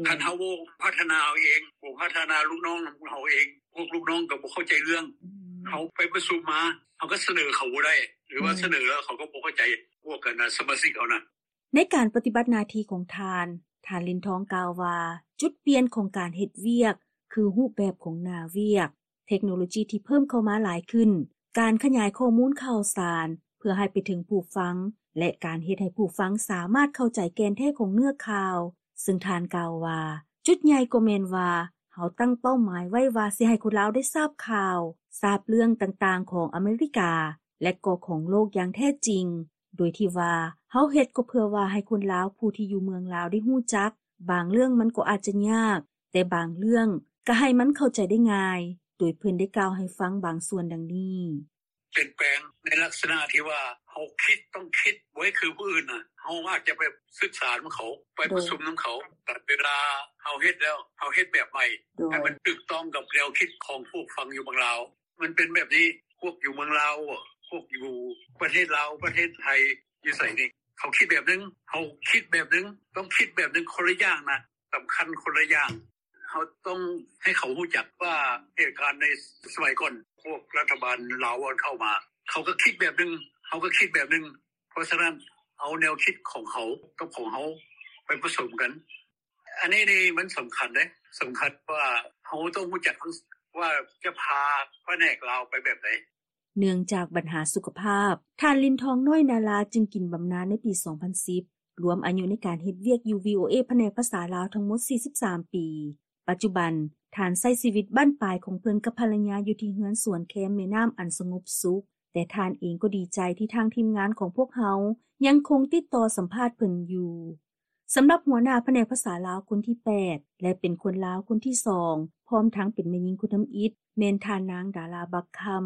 ຄັນເຮົາບໍ່ພັດທະນາເຮົາເອງ, ບໍ່ພັດທະນາລູກນ້ອງເຮົາເອງ, ພວກລູກນ້ອງກໍບໍ່ເຂົ້າໃຈເລື່ອງ. ເຮົາໄປປະຊຸມມາ ເຮົາກໍສະເໜີເຂົາບໍ່ໄດ້ ຫຼືວ່າສະເໜີແລ້ວເຂົາກໍບໍ່ເຂົ້າໃຈ ພວກກັນນະ ສະມາຊິກເຮົານະ. ໃນການປະຕິບັດໜ້າທີ່ຂອງທ່ານ, ທ່ານ ລິນທອງ ກ່າວວ່າ ຈຸດປ່ຽນຂອງການເຮັດວຽກ ຄືຮູບແບບຂອງໜ້າວຽກ, ເທັກໂນໂລຈີທີ່ເພີ່ມເຂົ້າມາຫຼາຍຂຶ້ນ, ການຂະຫຍາຍຂໍ້ມູນຂ່າວສານເພື່ອໃຫ້ໄປເຖິງຜູ້ຟັງ ແລະ ການເຮັດໃຫ້ຜູ້ຟັງສາມາດເຂົ້າໃຈແກ່ນແທ້ຂອງເນື້ອຂ່າວ, ເຊິ່ງທ່ານກ່າວວ່າ ຈຸດໃຫຍ່ກໍແມ່ນວ່າ ເຮົາຕັ້ງເປົ້າໝາຍໄວ້ວ່າຊິໃຫ້ຄົນລາວໄດ້ຊາບຂ່າວ, ຊາບເລື່ອງຕ່າງໆຂອງອາເມລິກາ ແລະ ກໍຂອງໂລກຢ່າງແທ້ຈິງ, ໂດຍທີ່ວ່າເຮົາເຮັດກໍເພື່ອວ່າໃຫ້ຄົນລາວຜູ້ທີ່ຢູ່ເມືອງລາວໄດ້ຮູ້ຈັກ, ບາງເລື່ອງມັນກໍອາດຈະຍາກ, ແຕ່ບາງເລື່ອງກໍໃຫ້ມັນເຂົ້າໃຈໄດ້ງ່າຍ, ໂດຍເພິ່ນໄດ້ກ່າວໃຫ້ຟັງບາງສ່ວນດັ່ງນີ້. ປ່ຽນແປງໃນລັກສະນະທີ່ວ່າເຮົາຄິດ ຕ້ອງຄິດບໍ່ໃຫ້ຄືຜູ້ອື່ນນະ. ເຮົາອາດຈະໄປສຶກສານຳເຂົາ, ໄປປະຊຸມນຳເຂົາ, ແຕ່ເວລາເຮົາເຮັດແລ້ວ ເຮົາເຮັດແບບໃໝ່ ໃຫ້ມັນຖືກຕ້ອງກັບແນວຄິດຂອງຜູ້ຟັງຢູ່ເມືອງລາວ. ມັນເປັນແບບນີ້, ພວກຢູ່ເມືອງລາວ, ພວກຢູ່ປະເທດລາວ, ປະເທດໄທ, ຢູ່ໃສນີ້ ເຂົາຄິດແບບໜຶ່ງ, ເຮົາຄິດແບບໜຶ່ງ, ຕ້ອງຄິດແບບໜຶ່ງ, ຄົນລະຢ່າງນະ, ສຳຄັນຄົນລະຢ່າງ. ເຮົາຕ້ອງໃຫ້ເຂົາຮູ້ຈັກວ່າເຫດການໃນສະໄໝກ່ອນ ພວກລັດຖະບານລາວເຂົ້າມາ ເຂົາກໍຄິດແບບໜຶ່ງ, ເຮົາກໍຄິດແບບໜຶ່ງ. ເພາະສະນັ້ນ ເອົາແນວຄິດຂອງເຂົາກັບຂອງເຮົາໄປປະສົມກັນ. ອັນນີ້ນີ້ມັນສຳຄັນເດ້, ສຳຄັນວ່າເຮົາຕ້ອງຮູ້ຈັກວ່າຈະພາພະແນກລາວໄປແບບໃດ. ເນື່ອງຈາກບັນຫາສຸຂະພາບ, ທ່ານ ລິນທອງ ນ້ອຍນາລາ ຈຶ່ງກິນບຳນານໃນປີສອງພັນສິບ, ລວມອາຍຸໃນການເຮັດວຽກຢູ່ VOA ພະແນກພາສາລາວທັງໝົດສີ່ສິບສາມປີ. ປັດຈຸບັນ, ທ່ານໃຊ້ຊີວິດບັ້ນປາຍຂອງເພິ່ນກັບພັນລະຍາຢູ່ທີ່ເຮືອນສວນແຄມແມ່ນ້ຳອັນສະຫງົບສຸກ, ແຕ່ທ່ານເອງກໍດີໃຈທີ່ທາງທີມງານຂອງພວກເຮົາຍັງຄົງຕິດຕໍ່ສຳພາດເພິ່ນຢູ່. ສຳລັບຫົວໜ້າພະແນກພາສາລາວຄົນທີແປດ ແລະ ເປັນຄົນລາວຄົນທີສອງ ພ້ອມທັງເປັນແມ່ຍິງຄົນທຳອິດ ແມ່ນທ່ານນາງ ດາລາ ບັກຄຳ.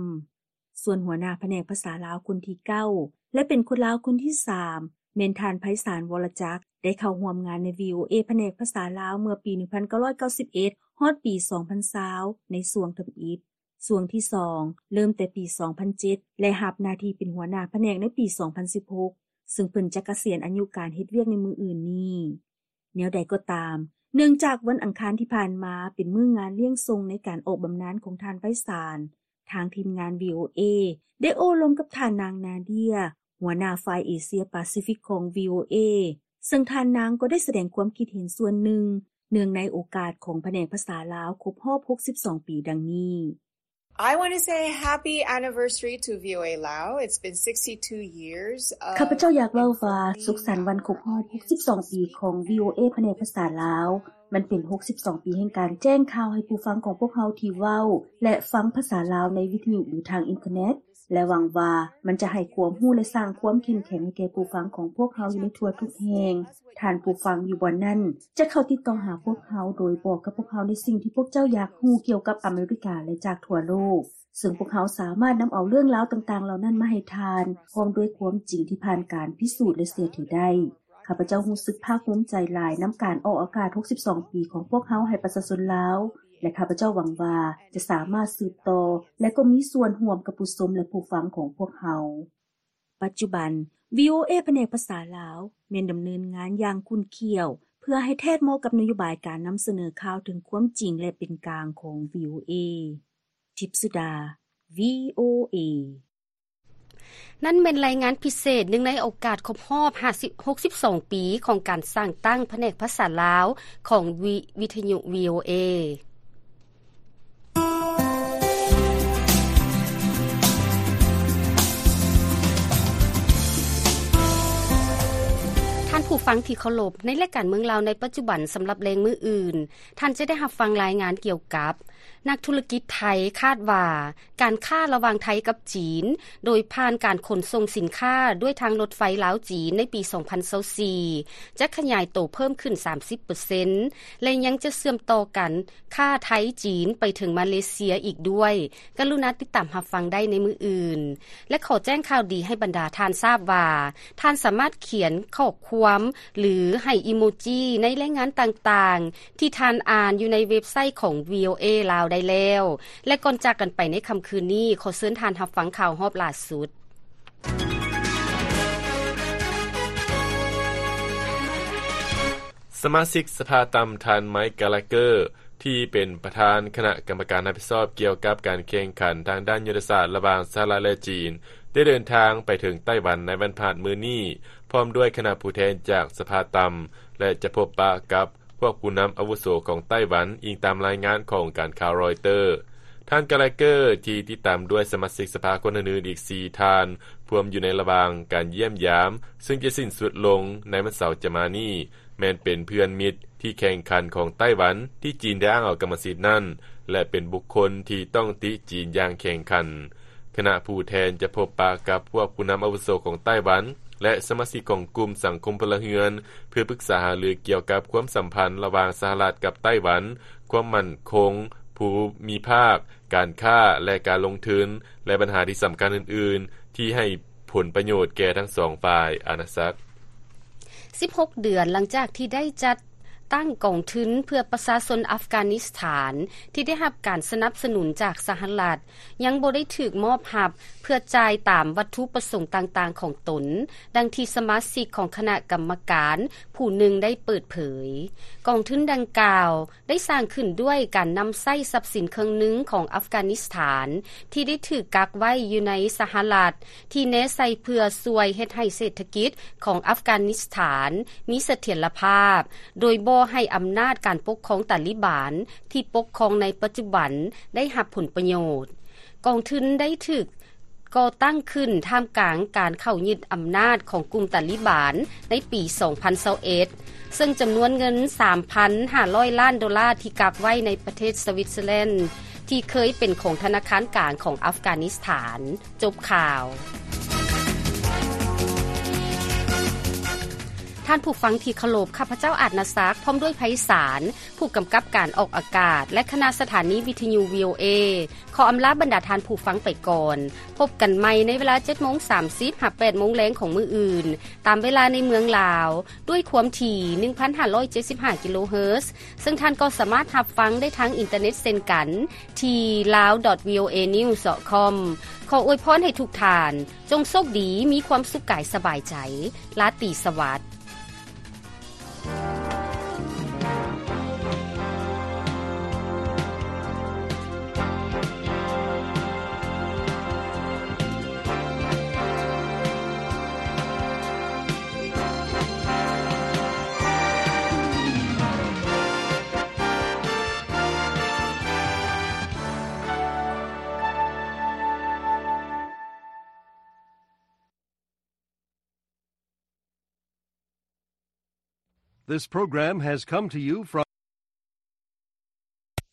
ສ່ວນຫົວໜ້າພະແນກພາສາລາວຄົນທີເກົ້າ ແລະ ເປັນຄົນລາວຄົນທີສາມ ແມ່ນທ່ານ ໄພສານ ວໍລະຈັກ ໄດ້ເຂົ້າຮ່ວມງານໃນ VOA ພະແນກພາສາລາວເມື່ອປີໜຶ່ງພັນເກົ້າຮ້ອຍເກົ້າສິບເອັດ ຮອດປີສອງພັນຊາວ ໃນຊ່ວງທຳອິດ. ຊ່ວງທີສອງ ເລີ່ມແຕ່ປີສອງພັນເຈັດ ແລະ ຮັບໜ້າທີ່ເປັນຫົວໜ້າພະແນກໃນປີສອງພັນສິບຫົກ ເຊິ່ງເພິ່ນຈະກະສຽນອາຍຸການເຮັດວຽກໃນມື້ອື່ນນີ້. ແນວໃດກໍຕາມ, ເນື່ອງຈາກວັນອັງຄານທີ່ຜ່ານມາເປັນມື້ງານລ້ຽງສົ່ງໃນການອອກບຳນານຂອງທ່ານໄພສານ, ທາງທີມງານ ວີໂອເອ ໄດ້ໂອ້ລົມກັບທ່ານນາງ ນາເດຍ ຫົວໜ້າຝ່າຍເອເຊຍປາຊີຟິກຂອງ ວີໂອເອ ເຊິ່ງທ່ານນາງກໍໄດ້ສະແດງຄວາມຄິດເຫັນສ່ວນໜຶ່ງ ເນື່ອງໃນໂອກາດຂອງພະແນກພາສາລາວຄົບຮອບຫົກສິບສອງປີ ດັ່ງນີ້. I want to say happy anniversary to V O A Lao. It's been sixty-two years of ຂ້າພະເຈົ້າຢາກເວົ້າວ່າ ສຸກສັນວັນຄົບຮອບຫົກສິບສອງປີຂອງ ວີໂອເອ ພະແນກພາສາລາວ. ມັນເປັນຫົກສິບສອງປີແຫ່ງການແຈ້ງຂ່າວໃຫ້ຜູ້ຟັງຂອງພວກເຮົາທີ່ເວົ້າ ແລະ ຟັງພາສາລາວໃນວິທະຍຸ ຫຼື ທາງອິນເຕີເນັດ ແລະ ຫວັງວ່າມັນຈະໃຫ້ຄວາມຮູ້ ແລະ ສ້າງຄວາມເຂັ້ມແຂງໃຫ້ແກ່ຜູ້ຟັງຂອງພວກເຮົາຢູ່ໃນທົ່ວທຸກແຫ່ງ. ທ່ານຜູ້ຟັງຢູ່ບ່ອນນັ້ນຈະເຂົ້າຕິດຕໍ່ຫາພວກເຮົາ ໂດຍບອກກັບພວກເຮົາໃນສິ່ງທີ່ພວກເຈົ້າຢາກຮູ້ກ່ຽວກັບອາເມລິກາ ແລະ ຈາກທົ່ວໂລກ, ເຊິ່ງພວກເຮົາສາມາດນຳເອົາເລື່ອງລາວຕ່າງໆເຫຼົ່ານັ້ນມາໃຫ້ທ່ານ ພ້ອມດ້ວຍຄວາມຈິງທີ່ຜ່ານການພິສູດ ແລະ ເຊື່ອຖືໄດ້. ຂ້າພະເຈົ້າຮູ້ສຶກພາກພູມໃຈຫຼາຍນຳການອອກອາກາດຫົກສິບສອງປີຂອງພວກເຮົາໃຫ້ປະຊາຊົນລາວ ແລະ ຂ້າພະເຈົ້າຫວັງວ່າຈະສາມາດສືບຕໍ່ ແລະ ກໍມີສ່ວນຮ່ວມກັບຜູ້ຊົມ ແລະ ຜູ້ຟັງຂອງພວກເຮົາ. ປັດຈຸບັນ ວີໂອເອ ພະແນກພາສາລາວ ແມ່ນດຳເນີນງານຢ່າງຂຸ້ນຂ້ຽວ ເພື່ອໃຫ້ແທດເໝາະກັບນະໂຍບາຍການນຳສະເໜີຂ່າວເຖິງຄວາມຈິງ ແລະ ເປັນກາງຂອງ ວີໂອເອ. ທິບສຸດາ ວີໂອເອ. ນັ້ນແມ່ນລາຍງານພິເສດ ເນື່ອງໃນໂອກາດຄົບຮອບຫ້າສິບ ຫົກສິບສອງປີຂອງການສ້າງຕັ້ງພະແນກພາສາລາວຂອງວິ ວິທະຍຸ ວີໂອເອ. ທ່ານຜູ້ຟັງທີ່ເຄົາລົບ, ໃນລາຍການເມືອງລາວໃນປັດຈຸບັນສຳລັບແລງມື້ອື່ນ, ທ່ານຈະໄດ້ຮັບຟັງລາຍງານກ່ຽວກັບ ນັກທຸລະກິດໄທຄາດວ່າ ການຄ້າລະຫວ່າງໄທກັບຈີນ ໂດຍຜ່ານການຂົນສົ່ງສິນຄ້າດ້ວຍທາງລົດໄຟລາວ-ຈີນໃນປີສອງພັນຊາວສີ່ ຈະຂະຫຍາຍໂຕເພີ່ມຂຶ້ນສາມສິບເປີເຊັນ ແລະ ຍັງຈະເຊື່ອມຕໍ່ການຄ້າໄທ-ຈີນໄປເຖິງມາເລເຊຍອີກດ້ວຍ. ກະລຸນາຕິດຕາມຮັບຟັງໄດ້ໃນມື້ອື່ນ. ແລະ ຂໍແຈ້ງຂ່າວດີໃຫ້ບັນດາທ່ານຊາບວ່າ ທ່ານສາມາດຂຽນຂໍ້ຄວາມ ຫຼື ໃຫ້ອີໂມຈິໃນລາຍງານຕ່າງໆ ທີ່ທ່ານອ່ານຢູ່ໃນເວັບໄຊຂອງ ວີໂອເອ ລາວໄດ້ແລ້ວ. ແລະ ກ່ອນຈາກກັນໄປໃນຄ່ຳຄືນນີ້, ຂໍເຊີນທ່ານຮັບຟັງຂ່າວຮອບຫຼ້າສຸດ. ສະມາຊິກສະພາຕ່ຳ ທ່ານ ໄມຄ໌ ກາລາເກີ ທີ່ເປັນປະທານຄະນະກຳມະການຮັບຜິດຊອບກ່ຽວກັບການແຂ່ງຂັນທາງດ້ານຍຸດທະສາດລະຫວ່າງສະຫະລັດ ແລະ ຈີນ ໄດ້ເດີນທາງໄປເຖິງໄຕ້ຫວັນໃນວັນພະຫັດມື້ນີ້ ພ້ອມດ້ວຍຄະນະຜູ້ແທນຈາກສະພາຕ່ຳ ແລະ ຈະພົບປະກັບພວກຜູ້ນຳອາວຸໂສຂອງໄຕ້ຫວັນ, ອີງຕາມລາຍງານຂອງການຂ່າວຣອຍເຕີ. ທ່ານ ກາລາເກີ ທີ່ຕິດຕາມດ້ວຍສະມາຊິກສະພາຄົນອື່ນໆອີກສີ່ທ່ານ ພວມຢູ່ໃນລະຫວ່າງການຢ້ຽມຢາມ ເຊິ່ງຈະສິ້ນສຸດລົງໃນວັນເສົາຈະມານີ້ ແມ່ນເປັນເພື່ອນມິດທີ່ແຂ່ງຂັນຂອງໄຕ້ຫວັນ ທີ່ຈີນໄດ້ອ້າງເອົາກຳມະສິດນັ້ນ ແລະ ເປັນບຸກຄົນທີ່ຕ້ອງຕິຈີນຢ່າງແຂງຂັນ. ຄະນະຜູ້ແທນຈະພົບປະກັບພວກຜູ້ນຳອາວຸໂສຂອງໄຕ້ຫວັນ ແລະ ສະມາຊິກຂອງກຸ່ມສັງຄົມພົນລະເຮືອນ ເພື່ອປຶກສາຫາລືກ່ຽວກັບຄວາມສຳພັນລະຫວ່າງສະຫະລັດກັບໄຕ້ຫວັນ, ຄວາມໝັ້ນຄົງພູມິພາກ, ການຄ້າ ແລະ ການລົງທຶນ ແລະ ບັນຫາທີ່ສຳຄັນອື່ນໆ ທີ່ໃຫ້ ຜົນປະໂຫຍດແກ່ທັງສອງຝ່າຍ. ອານາສັກ. ສິບຫົກເດືອນຫຼັງຈາກທີ່ໄດ້ຈັດຕັ້ງກອງທຶນເພື່ອປະຊາຊົນອັຟການິສຖານ ທີ່ໄດ້ຮັບການສະໜັບສະໜູນຈາກສະຫະລັດ ຍັງບໍ່ໄດ້ຖືກມອບຮັບເພື່ອຈ່າຍຕາມວັດຖຸປະສົງຕ່າງໆຂອງຕົນ, ດັ່ງທີ່ສະມາຊິກຂອງຄະນະກຳມະການຜູ້ໜຶ່ງໄດ້ເປີດເຜີຍ. ກອງທຶນດັ່ງກ່າວ ໄດ້ສ້າງຂຶ້ນດ້ວຍການນຳໃຊ້ຊັບສິນເຄິ່ງໜຶ່ງຂອງອັຟການິສຖານ ທີ່ໄດ້ຖືກກັກໄວ້ຢູ່ໃນສະຫະລັດ ທີ່ແນໃສ່ເພື່ອຊ່ວຍເຮັດໃຫ້ເສດຖະກິດຂອງອັຟການິສຖານມີສະຖຽນລະພາບ ໂດຍບໍ່ໃຫ້ອຳນາດການປົກຄອງຕາລີບານທີ່ປົກຄອງໃນປັດຈຸບັນໄດ້ຮັບຜົນປະໂຫຍດ. ກອງທຶນໄດ້ຖືກ ກໍ່ຕັ້ງຂຶ້ນທ່າມກາງການເຂົ້າຍຶດອຳນາດຂອງກຸ່ມຕາລີບານໃນປີສອງພັນຊາວເອັດ ເຊິ່ງຈຳນວນເງິນສາມພັນຫ້າຮ້ອຍລ້ານໂດລາທີ່ກັກໄວ້ໃນປະເທດສະວິດເຊີແລນ ທີ່ເຄີຍເປັນຂອງທະນາຄານກາງຂອງອັຟການິສຖານ. ຈົບຂ່າວ. ທ່ານຜູ້ຟັງທີ່ເຄົາລົບ, ຂ້າພະເຈົ້າ ອາດນາສັກ ພ້ອມດ້ວຍໄພສານ ຜູ້ກຳກັບການອອກອາກາດ ແລະ ຄະນະສະຖານີວິທະຍຸ ວີໂອເອ ຂໍອຳລາບັນດາທ່ານຜູ້ຟັງໄປກ່ອນ. ພົບກັນໃໝ່ໃນເວລາເຈັດໂມງສາມສິບ ຫາ ແປດໂມງແລງຂອງມື້ອື່ນ ຕາມເວລາໃນເມືອງລາວ ດ້ວຍຄວາມຖີ່ ໜຶ່ງພັນຫ້າຮ້ອຍເຈັດສິບຫ້າ ກິໂລເຮີດ ເຊິ່ງທ່ານກໍສາມາດຮັບຟັງໄດ້ທາງອິນເຕີເນັດເຊັ່ນກັນ ທີ່ ลາວ ດອດ ວີໂອເອ ນິວ ດອດ ຄອມ. ຂໍອວຍພອນໃຫ້ທຸກທ່ານ ຈົ່ງໂຊກດີ, ມີຄວາມສຸກກາຍສະບາຍໃຈ. ລາຕີສະຫວັດ. This program has come to you from